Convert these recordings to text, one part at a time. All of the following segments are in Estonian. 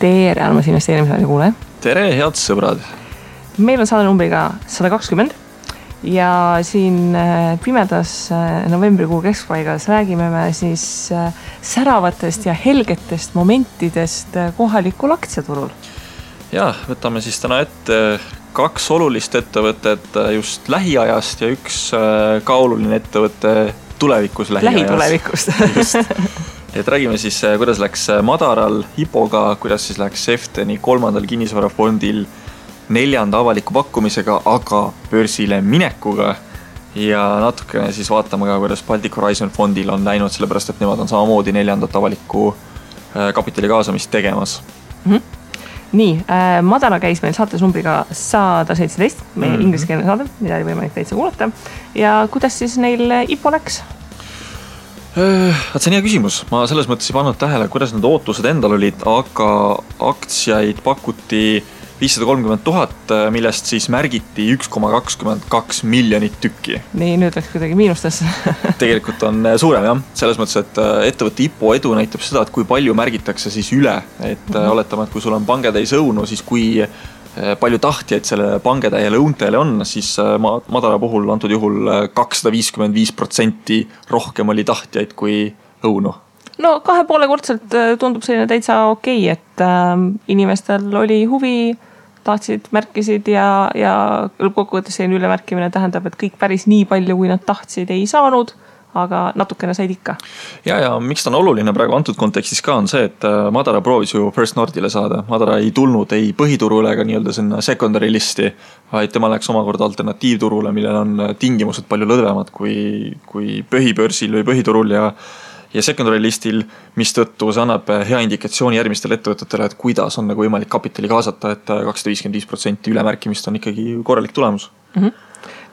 tere, armas investeerimisraadi kuulaja. Tere, head sõbrad. Meil on saade numbriga 120 ja siin pimedas novembrikuu keskpaigas räägime me siis säravatest ja helgetest momentidest kohalikul aktsiaturul. Ja, võtame siis täna ette 2 olulist ettevõtet just lähiajast ja üks ka oluline ettevõte tulevikus lähitulevikust. Just. Et räägime siis, kuidas läks Madaral Hipoga, kuidas siis läks Efteni 3. kinnisvarafondil 4. avaliku pakkumisega, aga börsile minekuga. Ja natukene siis vaatame ka, kuidas Baltic Horizon fondil on läinud, sellepärast et nemad on samamoodi 4. avaliku kapitali kaasamist tegemas. Nii, Madara käis meil saates numbriga 117, meie ingliskeelne saade, mida oli võimalik täitsa kuulata. Ja kuidas siis neil IPO läks? See on hea küsimus. Ma selles mõttes ei pannud tähele, kuidas need ootused endal olid, aga aktsiaid pakuti 530,000, millest siis märgiti 1,22 miljonit tükki. Nii, nüüd läks kuidagi miinustesse. Tegelikult on suurem, jah. Selles mõttes, et ettevõtte IPO edu näitab seda, et kui palju märgitakse siis üle. Et oletame, et kui sul on pangetäis õunu, siis kui palju tahtjaid selle pangetäiele õuntele on, siis Madara puhul antud juhul 255% rohkem oli tahtjaid kui õunu. No 2,5-kordselt tundub selline täitsa okei, et inimestel oli huvi, tahtsid, märkisid ja lõppkokkuvõttes selline ülemärkimine tähendab, et kõik päris nii palju, kui nad tahtsid, ei saanud, aga natukene said ikka. Ja miks ta on oluline praegu antud kontekstis ka on see, et Madara proovis ju First Nordile saada. Madara ei tulnud ei põhiturule ega nii-öelda sinna secondary listi, vaid tema läks omakorda alternatiivturule, millel on tingimused palju lõdvemad kui põhibörsil või põhiturul ja secondary listil, mis tõttu see annab hea indikatsiooni järgmistele ettevõtetele, et kuidas on nagu võimalik kapitali kaasata, et 255% ülemärkimist on ikkagi korralik tulemus.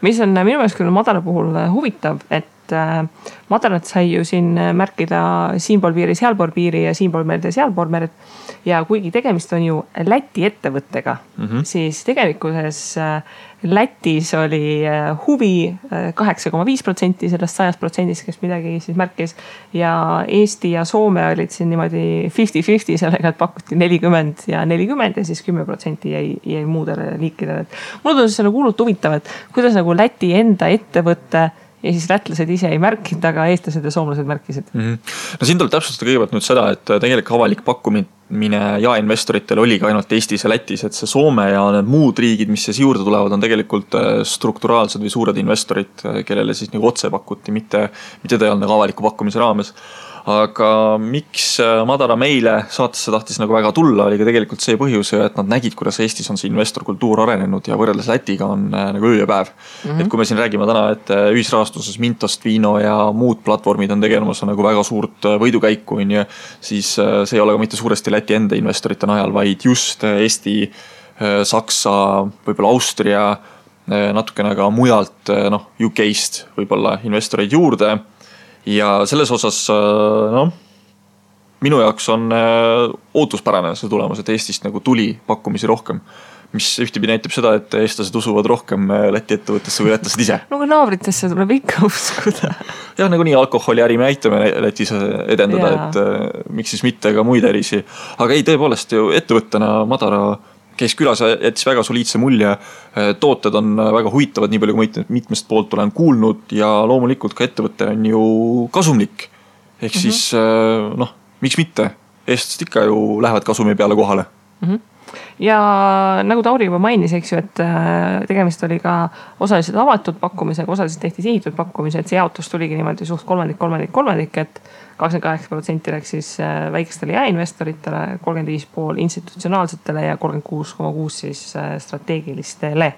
Mis on minu meelest küll Madara puhul huvitav, et Madarat sai ju siin märkida siinpool piiri, sealpool piiri ja siinpool merd ja sealpool merd. Ja kuigi tegemist on ju Läti ettevõttega, siis tegelikkuses Lätis oli huvi 8,5% sellest 100%, kes midagi siis märkis. Ja Eesti ja Soome olid siin niimoodi 50-50 sellega, et pakuti 40 ja 40 ja siis 10% jäi muudele liikidele. Mulle tundus see nagu hullult huvitav, et kuidas nagu Läti enda ettevõtte ja siis lätlased ise ei märkinud, aga eestlased ja soomlased märkisid. No siin tuleb täpsustada kõigepealt nüüd seda, et tegelikult avalik pakkumine ja investoritel oli ka ainult Eestis ja Lätis, et see Soome ja need muud riigid, mis siis juurde tulevad, on tegelikult strukturaalsed või suured investorid, kellele siis nagu otse pakuti, mitte ta ei olnud nagu avaliku pakkumise raames. Aga miks Madara meile saatesse tahtis nagu väga tulla, oli ka tegelikult see põhjus, et nad nägid, kuidas Eestis on see investorkultuur arenenud ja võrreldes Lätiga on nagu öö ja päev. Et kui me siin räägime täna, et ühisrahastuses Mintost, Viino ja muud platvormid on tegelemas nagu väga suurt võidukäiku, siis see ei ole ka mitte suuresti Läti enda investorite najal, vaid just Eesti, Saksa, võib-olla Austria, natukene ka mujalt UK-st võib-olla investoreid juurde. Ja selles osas, minu jaoks on ootuspärane see tulemus, et Eestist nagu tuli pakkumisi rohkem, mis ühtepidi näitab seda, et eestlased usuvad rohkem Läti ettevõttesse või lätlased ise. No kui naabritesse tuleb ikka uskuda. Jah, nagu nii alkoholiäri me aitame Lätis edendada, et miks siis mitte ka muid ärisi. Aga ei, tõepoolest ju ettevõttena Madara käis külas ja jättis väga soliidse mulje. Tooted on väga huvitavad, nii palju kui mitmest poolt olen kuulnud ja loomulikult ka ettevõte on ju kasumlik. Ehk siis, miks mitte? Eestlased ikka ju lähevad kasumi peale kohale. Ja nagu Tauri juba mainis, eks ju, et tegemist oli ka osaliselt avatud pakkumisega, osaliselt tehti sihitud pakkumise, et see jaotus tuligi niimoodi suht kolmandik, et 28% läks siis väikestele jaeinvestoritele, 35,5% institutsionaalsetele ja 36,6% siis strateegilistele.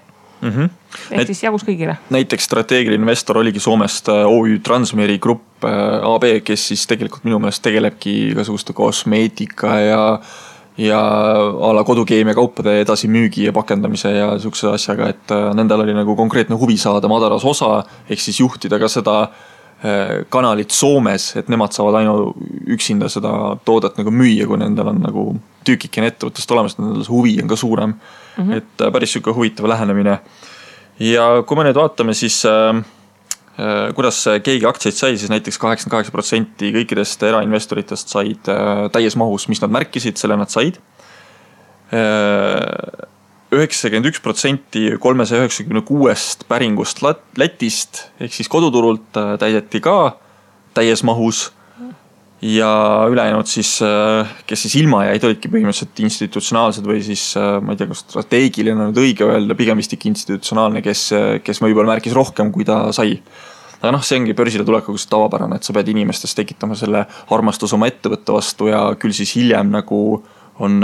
Ehk siis jagus kõigile. Näiteks strateegiline investor oligi Soomest OÜ Transmeri Grupp AB, kes siis tegelikult minu meelest tegelebki igasuguste kosmeetika ja ala kodukeemia kaupade edasi müügi ja pakendamise ja sihukese asjaga, et nendel oli nagu konkreetne huvi saada Madaras osa, ehk siis juhtida ka seda kanalit Soomes, et nemad saavad üksinda seda toodet nagu müüa, kui nendel on nagu tükikene ettevõttest olemas, nendel huvi on ka suurem. Et päris siuke huvitav lähenemine. Ja kui me nüüd vaatame, siis kuidas keegi aktsiaid sai, siis näiteks 88% kõikidest erainvestoritest said täies mahus, mis nad märkisid, selle nad said. 91% 396 päringust Lätist ehk siis koduturult täideti ka täies mahus. Ja ülejäänud siis, kes siis ilma jäid, olidki põhimõtteliselt institutsionaalsed või siis, ma ei tea, kas strateegiline on nüüd õige öelda, pigem vist ikka institutsionaalne, kes võib-olla märkis rohkem, kui ta sai. Aga see ongi börsile tulekuga tavapärane, et sa pead inimestes tekitama selle armastus oma ettevõtte vastu ja küll siis hiljem nagu on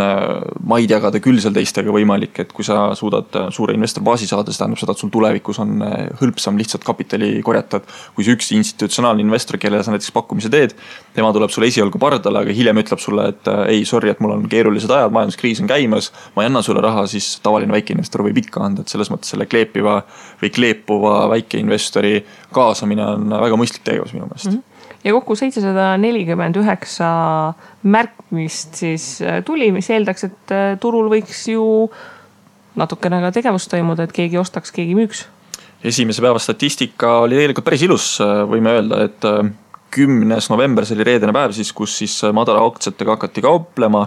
maid jagada küll seal teistega võimalik, et kui sa suudad suure investorbaasi saada, see tähendab seda, et sul tulevikus on hõlpsam lihtsalt kapitali korjata. Kui see üks institutsionaalne investor, kellele sa näiteks pakkumise teed, tema tuleb sulle esialgu pardale, aga hiljem ütleb sulle, et ei, sorry, et mul on keerulised ajad, majanduskriis on käimas, ma ei anna sulle raha, siis tavaline väikeinvestor võib ikka anda, et selles mõttes selle kleepiva või kleepuva väikeinvestori kaasamine on väga mõistlik tegevus minu meelest. Ja kokku 749 märkmist siis tuli, mis eeldaks, et turul võiks ju natukene ka tegevust toimuda, et keegi ostaks, keegi müüks. Esimese päeva statistika oli tegelikult päris ilus, võime öelda, et 10. november, see oli reedene päev siis, kus siis madala aktsiatega hakati kauplema.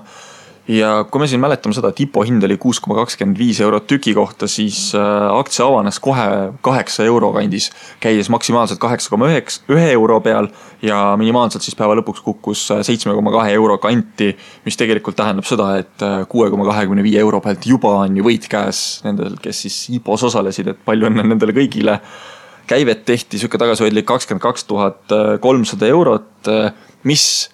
Ja kui me siin mäletame seda, et IPO hind oli 6,25 eurot tüki kohta, siis aktsia avanes kohe 8 euro kandis, käies maksimaalselt 8,1 euro peal ja minimaalselt siis päeva lõpuks kukkus 7,2 euro kanti, mis tegelikult tähendab seda, et 6,25 euro pealt juba on ju võit käes nendel, kes siis IPOs osalesid, et palju on nendele kõigile. Käivet tehti sükke tagasihoidlik 22 300 eurot, mis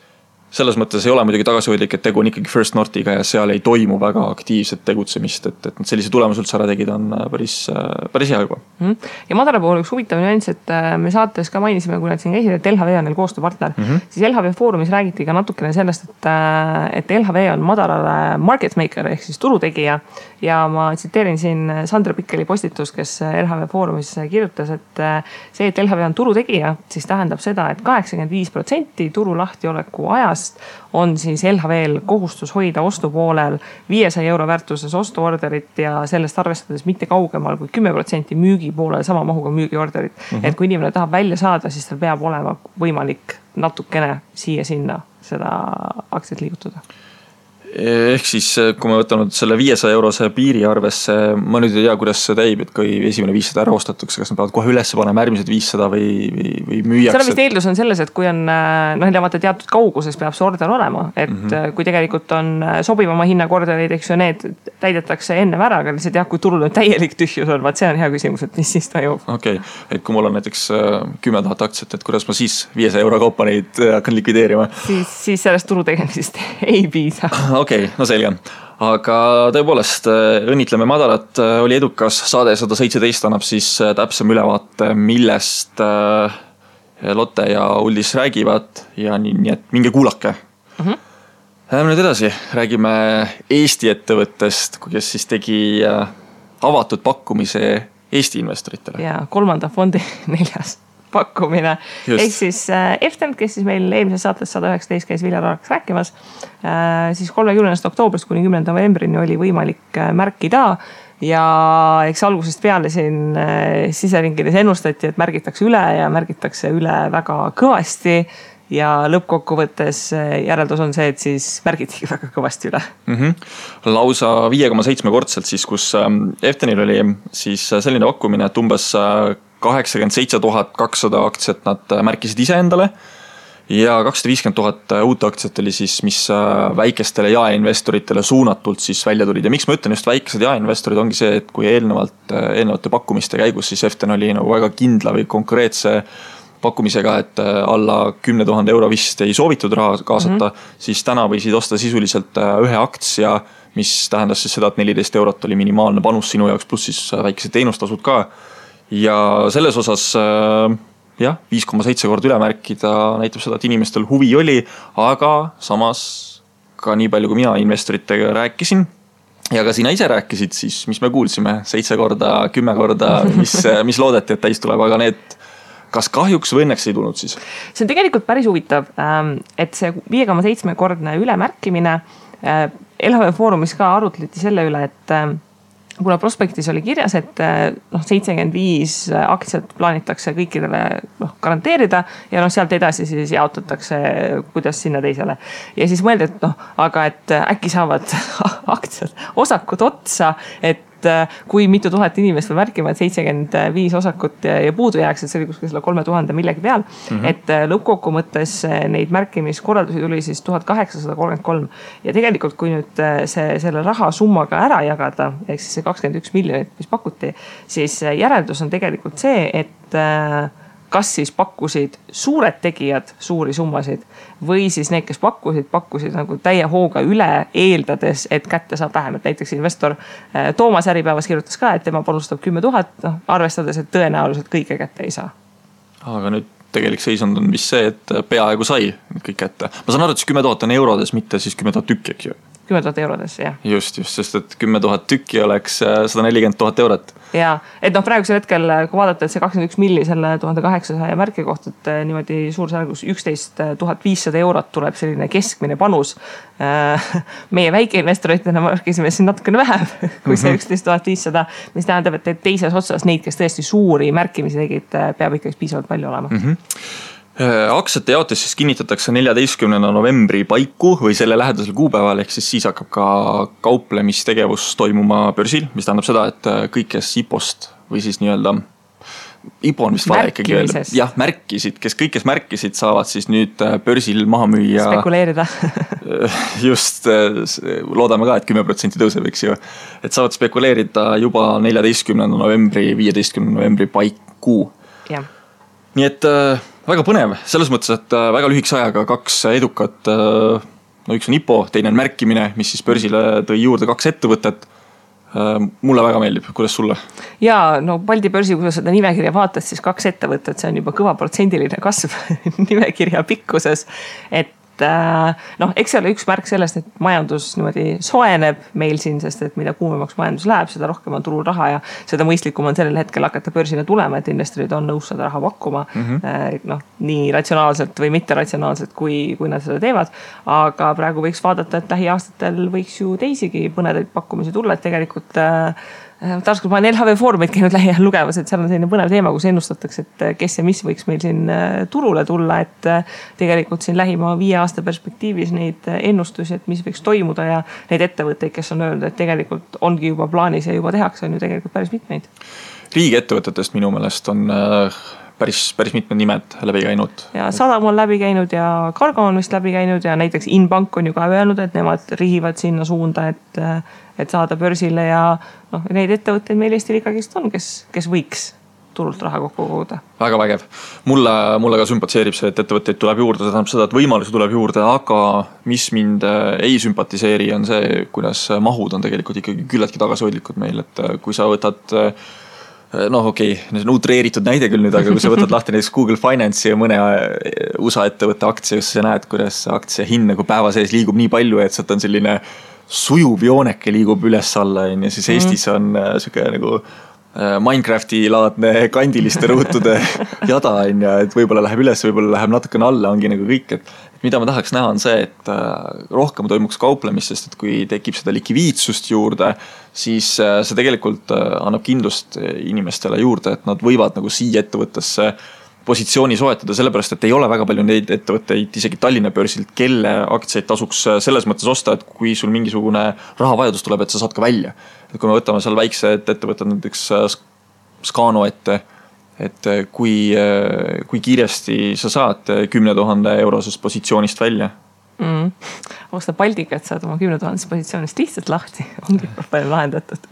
selles mõttes ei ole muidugi tagasihoidlik, et tegu on ikkagi First Northiga ja seal ei toimu väga aktiivset tegutsemist, et sellise tulemus üldse ära tegid on päris hea juba. Ja madala puhul üks huvitav nüanss, et me saates ka mainisime, kui nad siin käisid, et LHV on neil koostööpartner, siis LHV foorumis räägiti ka natukene sellest, et LHV on madalale market maker ehk siis turutegija ja ma tsiteerin siin Sandra Pikkeli postitus, kes LHV foorumis kirjutas, et see, et LHV on turutegija, siis tähendab seda, et 85% turu lahtioleku ajas on siis LHV-l kohustus hoida ostupoolel 500 euro väärtuses ostuorderit ja sellest arvestades mitte kaugemal kui 10% müügi poolel sama mahuga müügiorderit. Et kui inimene tahab välja saada, siis tal peab olema võimalik natukene siia-sinna seda aktsiat liigutada. Ehk siis, kui me võtame selle 500 eurose piiri arvesse, ma nüüd ei tea, kuidas see teib, et kui esimene 500 ära ostatakse, kas nad peavad kohe üles panema järgmised 500 või müüjaks? Selle vist eeldus on selles, et kui on teatud kauguses peab see order olema, et kui tegelikult on sobivama hinnakorderid, eks ju, need täidetakse enne ära, aga lihtsalt jah, kui turul on täielik tühjus on, vaat see on hea küsimus, et mis siis toimub. Okei, et kui mul on näiteks 10 000 aktsiat, et kuidas ma siis 500 euro kaupa neid hakkan likvideerima? Siis sellest turu tegemisest ei piisa. Okei, no selge. Aga tõepoolest õnnitleme madalat, oli edukas saade 117 annab siis täpsem ülevaate, millest Lotte ja Uldis räägivad ja nii et minge kuulake. Läheme nüüd edasi, räägime Eesti ettevõttest, kes siis tegi avatud pakkumise Eesti investoritele. Ja 3. fondi 4. pakkumine. Ehk siis Eftent, kes siis meil eelmises saates 119 käis Viljar Araks rääkimas, siis 30. oktoobrist kuni 10. novembrini oli võimalik märkida ja eks algusest peale siin siseringides ennustati, et märgitakse üle väga kõvasti ja lõppkokkuvõttes järeldus on see, et siis märgitigi väga kõvasti üle. Lausa 5,7 kordselt siis, kus Eftenil oli siis selline pakkumine, et umbes 87 200 aktsiat nad märkisid ise endale ja 250 000 uut aktsiat oli siis, mis väikestele jaeinvestoritele suunatult siis välja tulid. Ja miks ma ütlen just väikesed jaeinvestorid ongi see, et kui eelnevate pakkumiste käigus siis Eften oli nagu väga kindla või konkreetse pakkumisega, et alla 10 000 euro vist ei soovitud raha kaasata, siis täna võisid osta sisuliselt ühe aktsia, mis tähendas siis seda, et 14 eurot oli minimaalne panus sinu jaoks, pluss siis väikesed teenustasud ka. Ja selles osas 5,7 kord üle märkida näitab seda, et inimestel huvi oli, aga samas ka nii palju, kui mina investoritega rääkisin ja ka sina ise rääkisid, siis mis me kuulsime 7 korda, 10 korda, mis loodeti, et täis tuleb, aga need kas kahjuks või õnneks ei tulnud siis? See on tegelikult päris huvitav, et see 5,7 kordne ülemärkimine LHV foorumis ka arutleti selle üle, et kuna prospektis oli kirjas, et 75 aktsiat plaanitakse kõikidele garanteerida ja sealt edasi siis jaotatakse, kuidas sinna teisele. Ja siis mõeldi, et aga et äkki saavad aktsiad, osakud otsa, et kui mitu tuhat inimest või märkima, et 75 osakut ja puudu jääks, et see oli kuskil 3000 millegi peal. Et lõppkokku mõttes neid märkimiskorraldusi tuli siis 1833 ja tegelikult kui nüüd selle raha summaga ära jagada, ehk siis see 21 miljonit, mis pakuti, siis järeldus on tegelikult see, et kas siis pakkusid suured tegijad suuri summasid või siis need, kes pakkusid nagu täie hooga üle, eeldades, et kätte saab vähem. Et näiteks investor Toomas Äripäevas kirjutas ka, et tema panustab 10 000, arvestades, et tõenäoliselt kõike kätte ei saa. Aga nüüd tegelik seisund on vist see, et peaaegu sai kõik kätte. Ma saan aru, et 10 000 on eurodes, mitte siis 10 000 tükki, eks ju? 10 000 eurodes, jah. Just, sest et 10 000 tükki oleks 140 000 eurot. Ja, et praegusel hetkel, kui vaadata, et see 21 milli selle 1800 märki kohta, et niimoodi suursargus 11 500 eurot tuleb selline keskmine panus. Meie väikeinvestoritena märkisime siin natukene vähem kui see 11 500, mis tähendab, et teises otsas neid, kes tõesti suuri märkimisi tegid, peab ikkagi piisavalt palju olema. Aktsiate jaotis siis kinnitatakse 14. novembri paiku või selle lähedasel kuupäeval, ehk siis hakkab ka kauplemistegevus toimuma börsil, mis tähendab seda, et kõik, kes IPO-st või siis nii-öelda IPO on vist vale ikkagi öelda. Jah, märkisid, kõik, kes märkisid, saavad siis nüüd börsil maha müüa. Spekuleerida. Just, loodame ka, et 10% tõuseb, eks ju. Et saavad spekuleerida juba 14. novembri, 15. novembri paiku. Jah. Nii et väga põnev, selles mõttes, et väga lühikese ajaga kaks edukat, üks on IPO, teine on märkimine, mis siis börsile tõi juurde kaks ettevõtet. Mulle väga meeldib, kuidas sulle? Ja, Balti börsi, kui sa seda nimekirja vaatad, siis kaks ettevõtet, see on juba kõva protsendiline kasv nimekirja pikkuses, et eks see ole üks märk sellest, et majandus niimoodi soeneb meil siin, sest et mida kuumemaks majandus läheb, seda rohkem on turul raha ja seda mõistlikum on sellel hetkel hakata börsile tulema, et investorid on nõus seda raha pakkuma nii ratsionaalselt või mitte ratsionaalselt, kui nad seda teevad. Aga praegu võiks vaadata, et lähiaastatel võiks ju teisigi põnevaid pakkumisi tulla, et tegelikult taaskord ma olen LHV Foorumit käinud lähiajal lugemas, et seal on selline põnev teema, kus ennustatakse, et kes ja mis võiks meil siin turule tulla, et tegelikult siin lähima 5 aasta perspektiivis neid ennustusi, et mis võiks toimuda ja neid ettevõtteid, kes on öelnud, et tegelikult ongi juba plaanis ja juba tehakse, on ju tegelikult päris mitmeid. Riigiettevõtetest minu meelest on päris mitmed nimed läbi käinud. Ja Sadam on läbi käinud ja Cargo on vist läbi käinud ja näiteks Inbank on ju ka öelnud, et nemad rihivad sinna suunda, et saada börsile ja neid ettevõtteid meil Eestil ikkagist on, kes võiks turult raha kokku koguda. Väga vägev. Mulle ka sümpatiseerib see, et ettevõtteid tuleb juurde, see tähendab seda, et võimalusi tuleb juurde, aga mis mind ei sümpatiseeri on see, kuidas mahud on tegelikult ikkagi küllaltki tagasihoidlikud meil, et kui sa võtad okei, see on utreeritud näide küll nüüd, aga kui sa võtad lahti näiteks Google Finance'i ja mõne USA ettevõtte aktsia, kus sa näed, kuidas aktsia hind nagu päeva sees liigub nii palju, et sealt on selline sujuv jooneke liigub üles alla, ja siis Eestis on siuke nagu Minecrafti laadne kandiliste ruutude jada, et võib-olla läheb üles, võib-olla läheb natukene alla, ongi nagu kõik, et mida ma tahaks näha on see, et rohkem toimuks kauplemist, sest et kui tekib seda likviidsust juurde, siis see tegelikult annab kindlust inimestele juurde, et nad võivad nagu siia ettevõttesse positsiooni soetada, sellepärast, et ei ole väga palju neid ettevõtteid, isegi Tallinna börsilt, kelle aktsiaid tasuks selles mõttes osta, et kui sul mingisugune rahavajadus tuleb, et sa saad ka välja. Et kui me võtame seal väiksed ettevõtted, näiteks Scano ette, et kui kiiresti sa saad 10 000 eurosest positsioonist välja? Osta Baltikat, saad oma 10 000 positsioonist lihtsalt lahti, ongi palju lahendatud.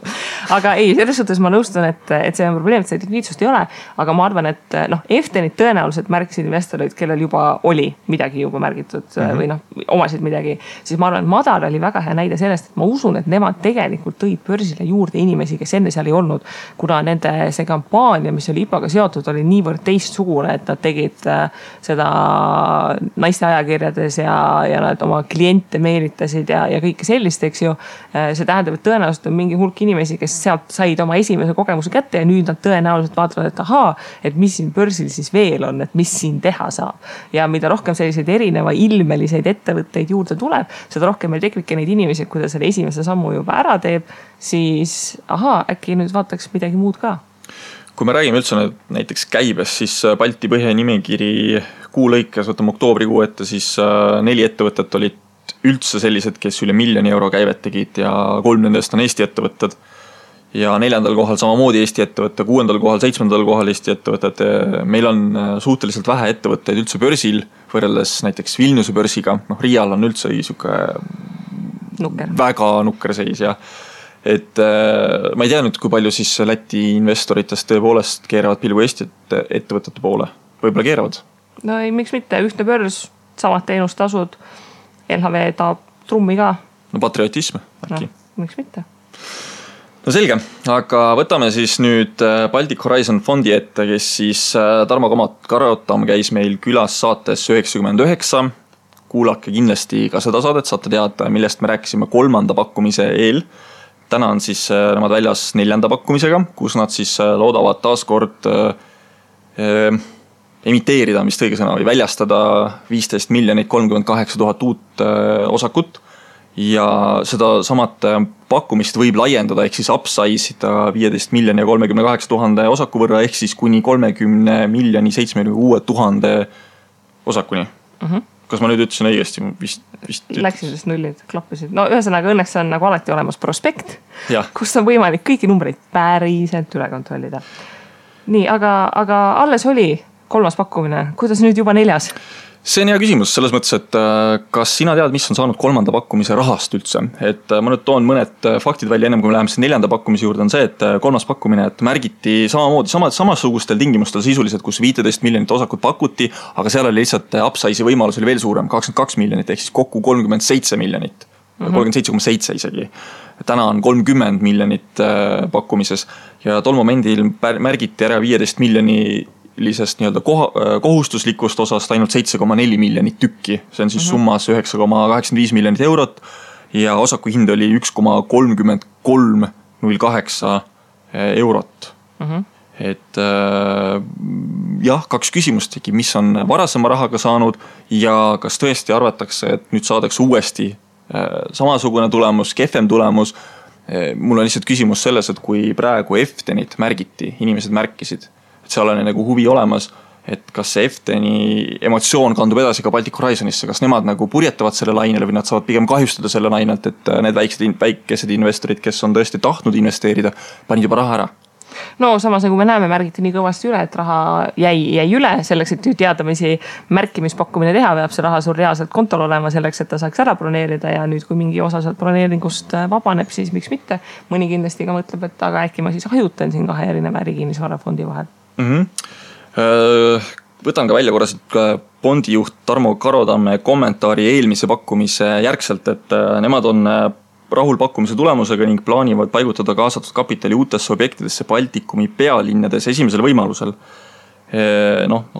Aga ei, selles suhtes ma nõustun, et see on probleem, et see likviidsust ei ole, aga ma arvan, et Eftenit tõenäoliselt märkisid investorid, kellel juba oli midagi juba märgitud või omasid midagi, siis ma arvan, et Madar oli väga hea näide sellest, et ma usun, et nemad tegelikult tõid börsile juurde inimesi, kes enne seal ei olnud, kuna nende see kampaania, mis oli IPO-ga seotud, oli niivõrd teistsugune, et nad tegid seda naiste ajakirjades ja nad oma kliente meelitasid ja kõike sellist, eks ju. See tähendab, et tõenäoliselt on mingi hulk inimesi, kes sealt said oma esimese kogemuse kätte ja nüüd nad tõenäoliselt vaatavad, et ahaa, et mis siin börsil siis veel on, et mis siin teha saab. Ja mida rohkem selliseid erineva ilmeliseid ettevõtteid juurde tuleb, seda rohkem meil tekibki neid inimesi, kui ta selle esimese sammu juba ära teeb, siis ahaa, äkki nüüd vaataks midagi muud ka. Kui me räägime üldse näiteks käibes, siis Balti põhja nimekiri kuu lõikes, võtame oktoobrikuu ette, siis 4 ettevõtet olid üldse sellised, kes üle 1 miljoni euro käivet tegid ja 3 nendest on Eesti ettevõtted. Ja 4. kohal samamoodi Eesti ettevõtte, 6. kohal, 7. kohal Eesti ettevõtted. Meil on suhteliselt vähe ettevõtteid üldse börsil, võrreldes näiteks Vilniuse börsiga. Riial on üldse väga nukker seis ja et ma ei tea nüüd, kui palju siis Läti investoritest tõepoolest keeravad pilgu Eesti ettevõtete poole. Võib-olla keeravad? No ei, miks mitte, ühtne börs, samad teenustasud, LHV taab trummi ka. No patriotism äkki. No, miks mitte? No selge, aga võtame siis nüüd Baltic Horizon fondi ette, kes siis Tarmo Karotam käis meil külas saates 99. Kuulake kindlasti ka seda saadet, saate teada, millest me rääkisime 3. pakkumise eel. Täna on siis nemad väljas 4. pakkumisega, kus nad siis loodavad taaskord emiteerida, mis õige sõna, või väljastada 15 38 000 uut osakut. Ja seda samat pakkumist võib laiendada, ehk siis upsize ida 15 38 000 osaku võrra, ehk siis kuni 30 76 000 osakuni. Kas ma nüüd ütlesin õigesti? Läksid sest nullid, klappisid. No ühesõnaga õnneks on nagu alati olemas prospekt, kus on võimalik kõiki numbreid päriselt üle kontrollida. Nii, aga alles oli 3. pakkumine. Kuidas nüüd juba 4? See on hea küsimus selles mõttes, et kas sina tead, mis on saanud 3. pakkumise rahast üldse? Et ma nüüd toon mõned faktid välja ennem, kui me läheme 4. pakkumise juurde, on see, et 3. pakkumine et märgiti samamoodi, samasugustel tingimustel sisuliselt, kus 15 miljonit osakut pakuti, aga seal oli lihtsalt upsize'i võimalus oli veel suurem, 22 miljonit, ehk siis kokku 37 miljonit, 37,7 isegi. Täna on 30 miljonit pakkumises ja tol momendil märgiti ära 15 miljoni nii-öelda kohustuslikust osast ainult 7,4 miljonit tükki. See on siis summas 9,85 miljonit eurot ja osaku hind oli 1,3308 eurot. Et jah, 2 küsimust tegi, mis on varasema rahaga saanud ja kas tõesti arvatakse, et nüüd saadakse uuesti samasugune tulemus, kehvem tulemus. Mul on lihtsalt küsimus selles, et kui praegu Eftenit märgiti, inimesed märkisid, seal on nagu huvi olemas, et kas see Efteni emotsioon kandub edasi ka Baltic Horizonisse, kas nemad nagu purjetavad selle lainele või nad saavad pigem kahjustada selle lainelt, et need väikesed investorid, kes on tõesti tahtnud investeerida, panid juba raha ära. No samas nagu me näeme, märgiti nii kõvasti üle, et raha jäi üle selleks, et teadamisi märkimispakkumine teha, peab see raha sul reaalselt kontol olema selleks, et ta saaks ära broneerida ja nüüd, kui mingi osa sealt broneeringust vabaneb, siis miks mitte. Mõni kindlasti ka mõtleb, et aga äkki ma siis hajutan siin 2 erineva ärikinnisvarafondi vahel. Võtan ka välja korraselt bondijuht Tarmo Karotamme kommentaari eelmise pakkumise järgselt, et nemad on rahul pakkumise tulemusega ning plaanivad paigutada kaasatud kapitali uutesse objektidesse Baltikumi pealinnades esimesel võimalusel.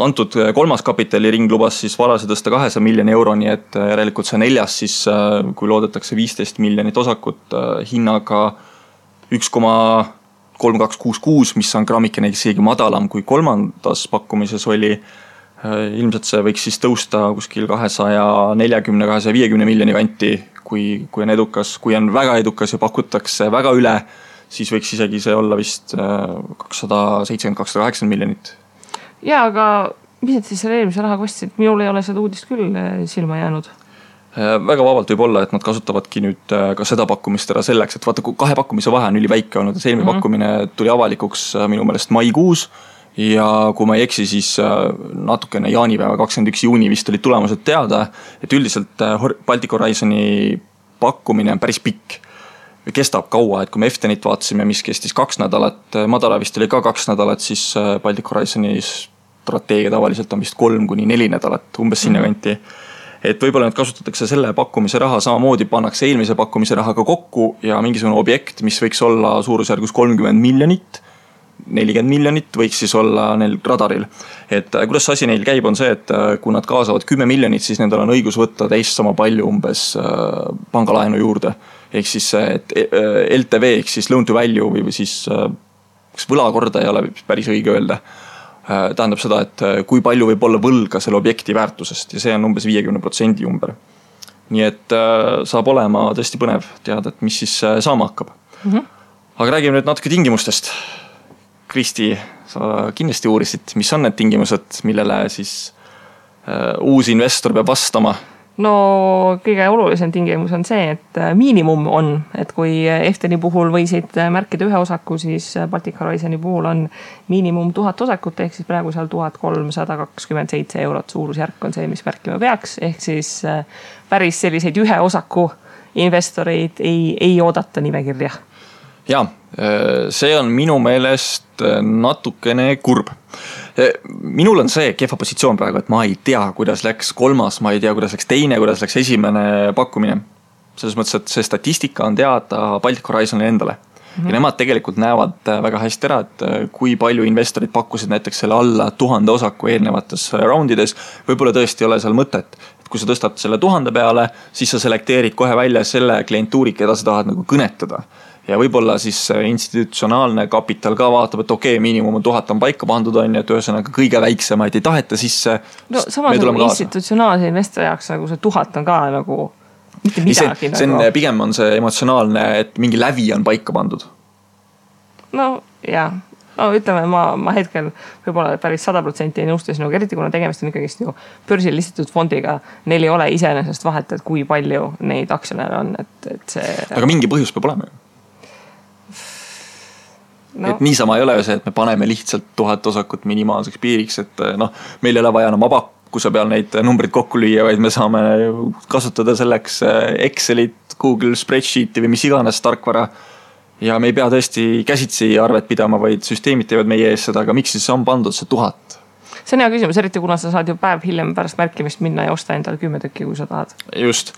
Antud 3. kapitali ring lubas siis varase tõsta 200 miljoni euroni, et järelikult see 4. siis kui loodetakse 15 miljonit osakut hinnaga 1,3266, mis on grammikene isegi madalam kui 3. pakkumises oli. Ilmselt see võiks siis tõusta kuskil 240-250 miljoni kanti, kui on edukas. Kui on väga edukas ja pakutakse väga üle, siis võiks isegi see olla vist 270-280 miljonit. Ja, aga mis et siis selle eelmise raha kostsid? Minul ei ole seda uudist küll silma jäänud. Väga vabalt võib olla, et nad kasutavadki nüüd ka seda pakkumist ära selleks, et vaata, 2 pakkumise vahe on üliväike olnud, et eelmine pakkumine tuli avalikuks minu meelest maikuus ja kui ma ei eksi, siis natukene jaanipäeva 21 juuni vist olid tulemused teada, et üldiselt Baltic Horizoni pakkumine on päris pikk. Kestab kaua, et kui me Eftenit vaatasime, mis kestis 2 nädalat, Madara vist oli ka 2 nädalat, siis Baltic Horizoni strateegia tavaliselt on vist 3-4 nädalat, umbes sinna kanti. Et võib-olla need kasutatakse selle pakkumise raha, samamoodi pannakse eelmise pakkumise rahaga kokku ja mingisugune objekt, mis võiks olla suurusjärgus 30 miljonit, 40 miljonit võiks siis olla neil radaril. Et kuidas asi neil käib on see, et kui nad kaasavad 10 miljonit, siis nendel on õigus võtta teist sama palju umbes pangalaenu juurde. ehk siis et LTV ehk siis loan to value või siis kas võlakorda ei ole päris õige öelda. Tähendab seda, et kui palju võib olla võlga selle objekti väärtusest ja see on umbes 50% ümber. Nii et saab olema tõesti põnev teada, et mis siis saama hakkab. Aga räägime nüüd natuke tingimustest. Kristi, sa kindlasti uurisid, mis on need tingimused, millele siis uus investor peab vastama? No kõige olulisem tingimus on see, et miinimum on, et kui Efteni puhul võisid märkida ühe osaku, siis Baltic Horizoni puhul on miinimum 1000 osakut, ehk siis praegu seal 1327 eurot suurusjärk on see, mis märkima peaks, ehk siis päris selliseid ühe osaku investoreid ei oodata nimekirja. Ja, see on minu meelest natukene kurb. Minul on see kehva positsioon praegu, et ma ei tea, kuidas läks kolmas, ma ei tea, kuidas läks teine, kuidas läks esimene pakkumine. Selles mõttes, et see statistika on teada Baltic Horizonile endale. Ja nemad tegelikult näevad väga hästi ära, et kui palju investorid pakkusid näiteks selle alla 1000 osaku eelnevates roundides, võib-olla tõesti ei ole seal mõtet. Et kui sa tõstad selle 1000 peale, siis sa selekteerid kohe välja selle klientuuri, keda sa tahad nagu kõnetada. Ja võib-olla siis institutsionaalne kapital ka vaatab, et okei, miinimum 1000 on paika pandud on ja et ühesõnaga kõige väiksemaid ei taheta sisse. No samas nagu institutsionaalse investori jaoks nagu see 1000 on ka nagu mitte midagi. See on, pigem on see emotsionaalne, et mingi lävi on paika pandud. No jah, no ütleme, ma hetkel võib-olla päris 100% ei nõustu sinuga, eriti kuna tegemist on ikkagi ju börsil listitud fondiga. Neil ei ole iseenesest vahet, et kui palju neid aktsionäre on. Et see... Aga mingi põhjus peab olema ju. No. Et niisama ei ole ju see, et me paneme lihtsalt 1000 osakut minimaalseks piiriks, et meil ei ole vaja enam abakkuse peal neid numbrid kokku lüüa, vaid me saame kasutada selleks Excelit, Google Spreadsheeti või mis iganes tarkvara. Ja me ei pea tõesti käsitsi arvet pidama, vaid süsteemid teevad meie ees seda, aga miks siis on pandud see 1000? See on hea küsimus, eriti kuna sa saad ju päev hiljem pärast märkimist minna ja osta endale 10 tükki, kui sa tahad. Just.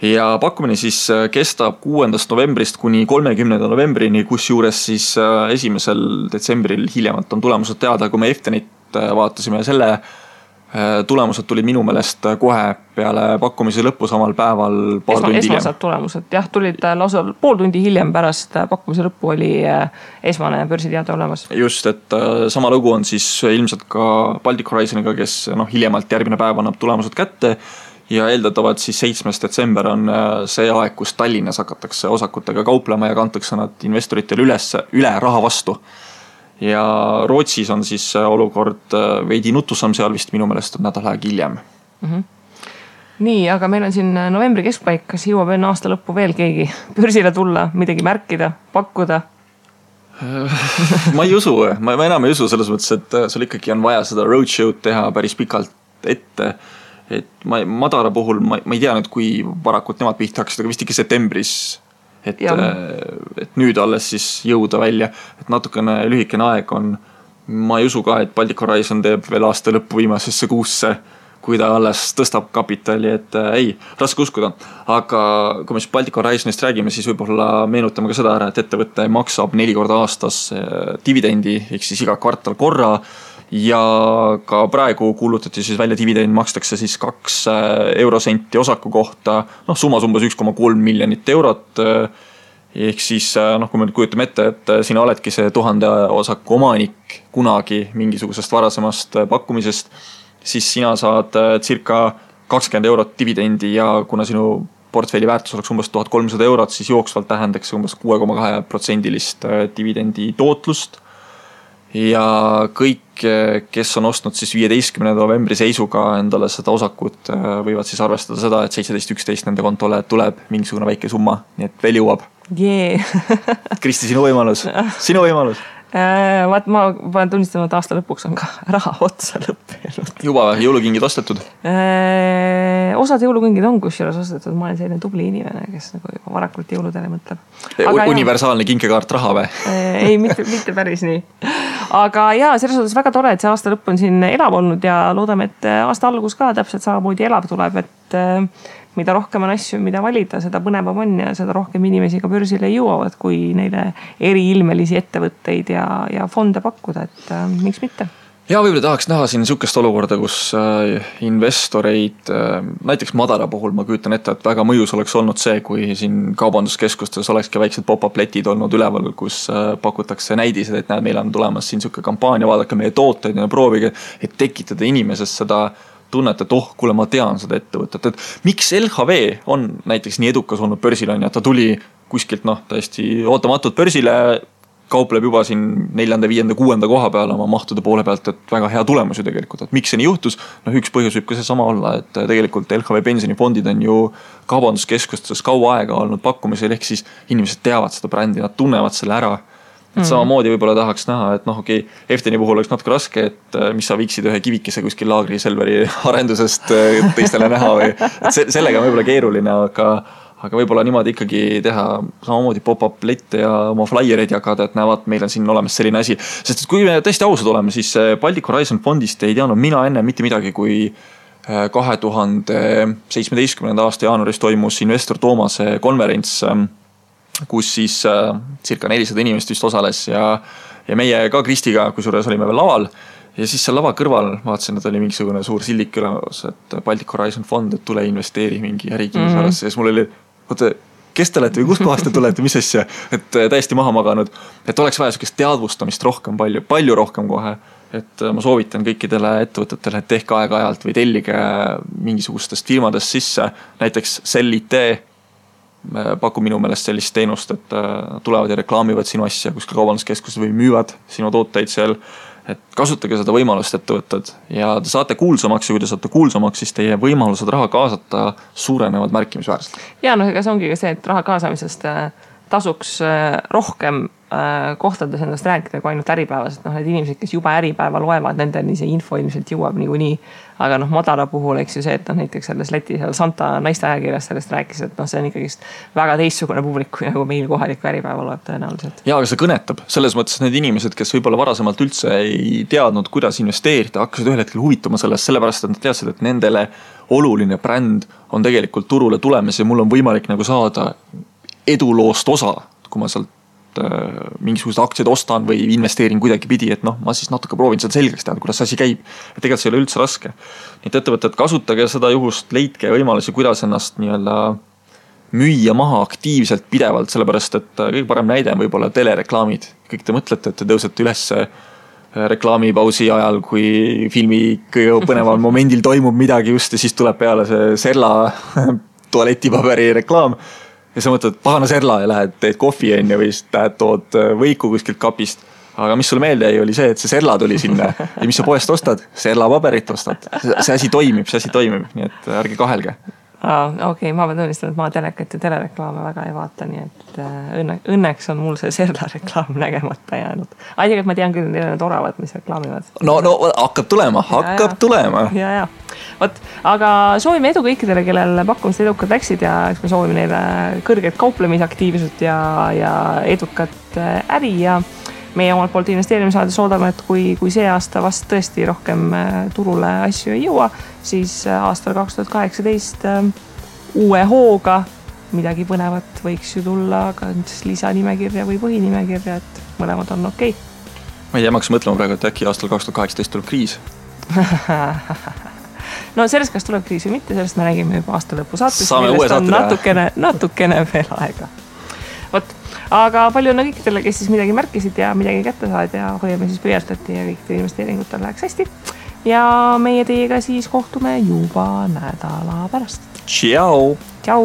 Ja pakkumine siis kestab 6. novembrist kuni 30. novembrini, kus juures siis 1. detsembril hiljemalt on tulemused teada, kui me Eftenit vaatasime selle tulemused tulid minu meelest kohe peale pakkumise lõppu samal päeval paar tundi hiljem. Esmased tulemused, jah, tulid lausa pool tundi hiljem pärast pakkumise lõppu oli esmane börsiteade olemas. Just, et sama lugu on siis ilmselt ka Baltic Horizoniga, kes hiljemalt järgmine päev annab tulemused kätte ja eeldatavad siis 7. detsember on see aeg, kus Tallinnas hakatakse osakutega kauplema ja kantakse nad investoritele üle raha vastu. Ja Rootsis on siis olukord veidi nutusam, seal vist minu meelest on nädal aeg hiljem. Nii, aga meil on siin novembri keskpaik, kas jõuab enne aasta lõppu veel keegi börsile tulla, midagi märkida, pakkuda? Ma ei usu, ma enam ei usu selles mõttes, et sul ikkagi on vaja seda roadshow'd teha päris pikalt ette. Et madala puhul, ma ei tea nüüd, kui varakult nemad pihta hakkasid, aga vist ikka septembris. Et nüüd alles siis jõuda välja, et natukene lühikene aeg on, ma ei usu ka, et Baltic Horizon teeb veel aasta lõppu viimasesse kuusse, kui ta alles tõstab kapitali, et ei, raske uskuda. Aga kui me siis Baltic Horizonist räägime, siis võib-olla meenutame ka seda ära, et ettevõte maksab 4 korda aastas dividendi, ehk siis iga kvartal korra ja ka praegu kuulutati siis välja dividend, makstakse siis 2 eurosenti osaku kohta, summas umbes 1,3 miljonit eurot. Ehk siis, kui me kujutame ette, et sina oledki see 1000 osaku omanik kunagi mingisugusest varasemast pakkumisest, siis sina saad circa 20 eurot dividendi ja kuna sinu portfelli väärtus oleks umbes 1300 eurot, siis jooksvalt tähendaks umbes 6,2% dividendi tootlust. Ja kõik, kes on ostnud siis 15. novembri seisuga endale seda osakut, võivad siis arvestada seda, et 17.11 nende kontole tuleb mingisugune väike summa, nii et veel jõuab. Kristi, sinu võimalus. Vaat ma pean tunnistama, et aasta lõpuks on ka raha otsa lõppenud. Juba jõulukingid ostetud? Osad jõulukingid on kusjuures ostetud, ma olen selline tubli inimene, kes nagu juba varakult jõuludele mõtleb. Universaalne kinkekaart raha või? Ei, mitte päris nii. Aga jaa, selles suhtes väga tore, et see aasta lõpp on siin elav olnud ja loodame, et aasta algus ka täpselt samamoodi elav tuleb, et mida rohkem on asju, mida valida, seda põnevam on ja seda rohkem inimesi ka börsile jõuavad, kui neile eriilmelisi ettevõtteid ja fonde pakkuda, et miks mitte? ja võib-olla tahaks näha siin niisugust olukorda, kus investoreid, näiteks Madara puhul ma kujutan ette, et väga mõjus oleks olnud see, kui siin kaubanduskeskustes olekski väiksed pop-up letid olnud üleval, kus pakutakse näidised, et näed, meil on tulemas siin niisugune kampaania, vaadake meie tooteid ja proovige, et tekitada inimesest seda tunnet, et kuule, ma tean seda ettevõtet, et miks LHV on näiteks nii edukas olnud börsil on ja ta tuli kuskilt täiesti ootamatult börsile, kaupleb juba siin 4., 5., 6. koha peal oma mahtude poole pealt, et väga hea tulemus ju tegelikult, et miks see nii juhtus? Üks põhjus võib ka see sama olla, et tegelikult LHV pensionifondid on ju kaubanduskeskustes kaua aega olnud pakkumisel, ehk siis inimesed teavad seda brändi, nad tunnevad selle ära. Et samamoodi võib-olla tahaks näha, et Efteni puhul oleks natuke raske, et mis sa viiksid ühe kivikese kuskil laagri Selveri arendusest teistele näha või sellega on võib-olla keeruline, aga võib-olla niimoodi ikkagi teha samamoodi pop-up lette ja oma flyer'id jagada, et näevad, meil on siin olemas selline asi. Sest kui me tõesti ausad oleme, siis Baltic Horizon fondist ei teadnud mina enne mitte midagi, kui 2017. aasta jaanuaris toimus investor Toomase konverents, kus siis circa 400 inimest vist osales ja meie ka Kristiga, kusjuures olime veel laval. Ja siis seal lava kõrval vaatasin, et oli mingisugune suur sildik ülemas, et Baltic Horizon fond, et tule investeeri mingi ärikinnisvarasse. Ja siis mul oli kes te olete või kust kohast te tulete, mis asja, et täiesti maha maganud, et oleks vaja sellist teadvustamist rohkem, palju rohkem kohe, et ma soovitan kõikidele ettevõtetele, et tehke aeg-ajalt või tellige mingisugustest firmadest sisse, näiteks Sell IT pakub minu meelest sellist teenust, et tulevad ja reklaamivad sinu asja kuskil kaubanduskeskuses või müüvad sinu tooteid seal. Et kasutage seda võimalust ettevõtted ja te saate kuulsamaks ja kui te saate kuulsamaks, siis teie võimalused raha kaasata suurenevad märkimisväärselt. Ja ega see ongi ka see, et raha kaasamisest tasuks rohkem kohtades endast rääkida kui ainult äripäevas, et need inimesed, kes juba äripäeva loevad, nendeni see info ilmselt jõuab niikuinii. Aga Madara puhul, eks ju see, et näiteks selles leti seal Santa naiste ajakirjas sellest rääkis, et see on ikkagi väga teistsugune publik, kui nagu meil kohaliku äripäeva loeb tõenäoliselt. Ja, aga see kõnetab. Selles mõttes need inimesed, kes võib-olla varasemalt üldse ei teadnud, kuidas investeerida, hakkasid ühel hetkel huvituma sellest, sellepärast, et nad teadsid, et nendele oluline bränd on tegelikult turule tulemas ja mul on võimalik nagu saada eduloost osa, kui ma sealt mingisugused aktsiad ostan või investeerin kuidagi pidi, et ma siis natuke proovin seda selgeks teada, kuidas asi käib. Ja tegelikult see ei ole üldse raske. Nii et ettevõtted, kasutage seda juhust, leidke võimalusi, kuidas ennast müüa maha aktiivselt pidevalt, sellepärast, et kõige parem näide on võib-olla telereklaamid. Kõik te mõtlete, et te tõusete üles reklaamipausi ajal, kui filmi kõige põneval momendil toimub midagi just ja siis tuleb peale see Serla tualetipaberi reklaam. Ja sa mõtled, pahana Serla ja lähed, teed kohvi enne või tood võiku kuskilt kapist. Aga mis sulle meelde jäi, oli see, et see Serla tuli sinna. Ja mis sa poest ostad? Serla paberit ostad. See asi toimib, nii et ärge kahelge. Okei, ma pean tunnistama, et ma telekat ja telereklaame väga ei vaata, nii et õnneks on mul see Serla reklaam nägemata jäänud. Tegelikult ma tean küll, neil on oravad, mis reklaamivad. No hakkab tulema. Ja. Võt, aga soovime edu kõikidele, kellel pakkumised edukad läksid ja eks me soovime neile kõrget kauplemisaktiivsust ja edukat äri ja meie omalt poolt investeerimissaades oodame, et kui see aasta vast tõesti rohkem turule asju ei jõua, siis aastal 2018 uue hooga midagi põnevat võiks ju tulla ka lisanimekirja või põhinimekirja, et mõlemad on okei. Ma ei jäämaks mõtlema praegu, et äkki aastal 2018 tuleb kriis. No sellest, kas tuleb kriis või mitte, sellest me räägime juba aasta lõpu saates. Saame uue saate natukene veel aega. Võt, aga palju on kõikidele, kes siis midagi märkisid ja midagi kätte saad ja hoiame siis pöördati ja kõikidele investeeringutel läheks hästi. Ja meie teiega siis kohtume juba nädala pärast. Tšau! Tšau!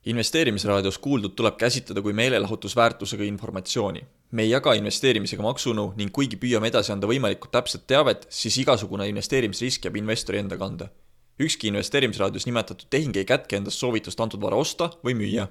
Investeerimisraadios kuuldud tuleb käsitleda kui meelelahutusväärtusega informatsiooni. Me ei jaga investeerimisega maksunu ning kuigi püüame edasi anda võimalikult täpset teavet, siis igasugune investeerimisrisk jääb investori enda kanda. Ükski investeerimisraadios nimetatud tehing ei kätke endast soovitust antud vara osta või müüa.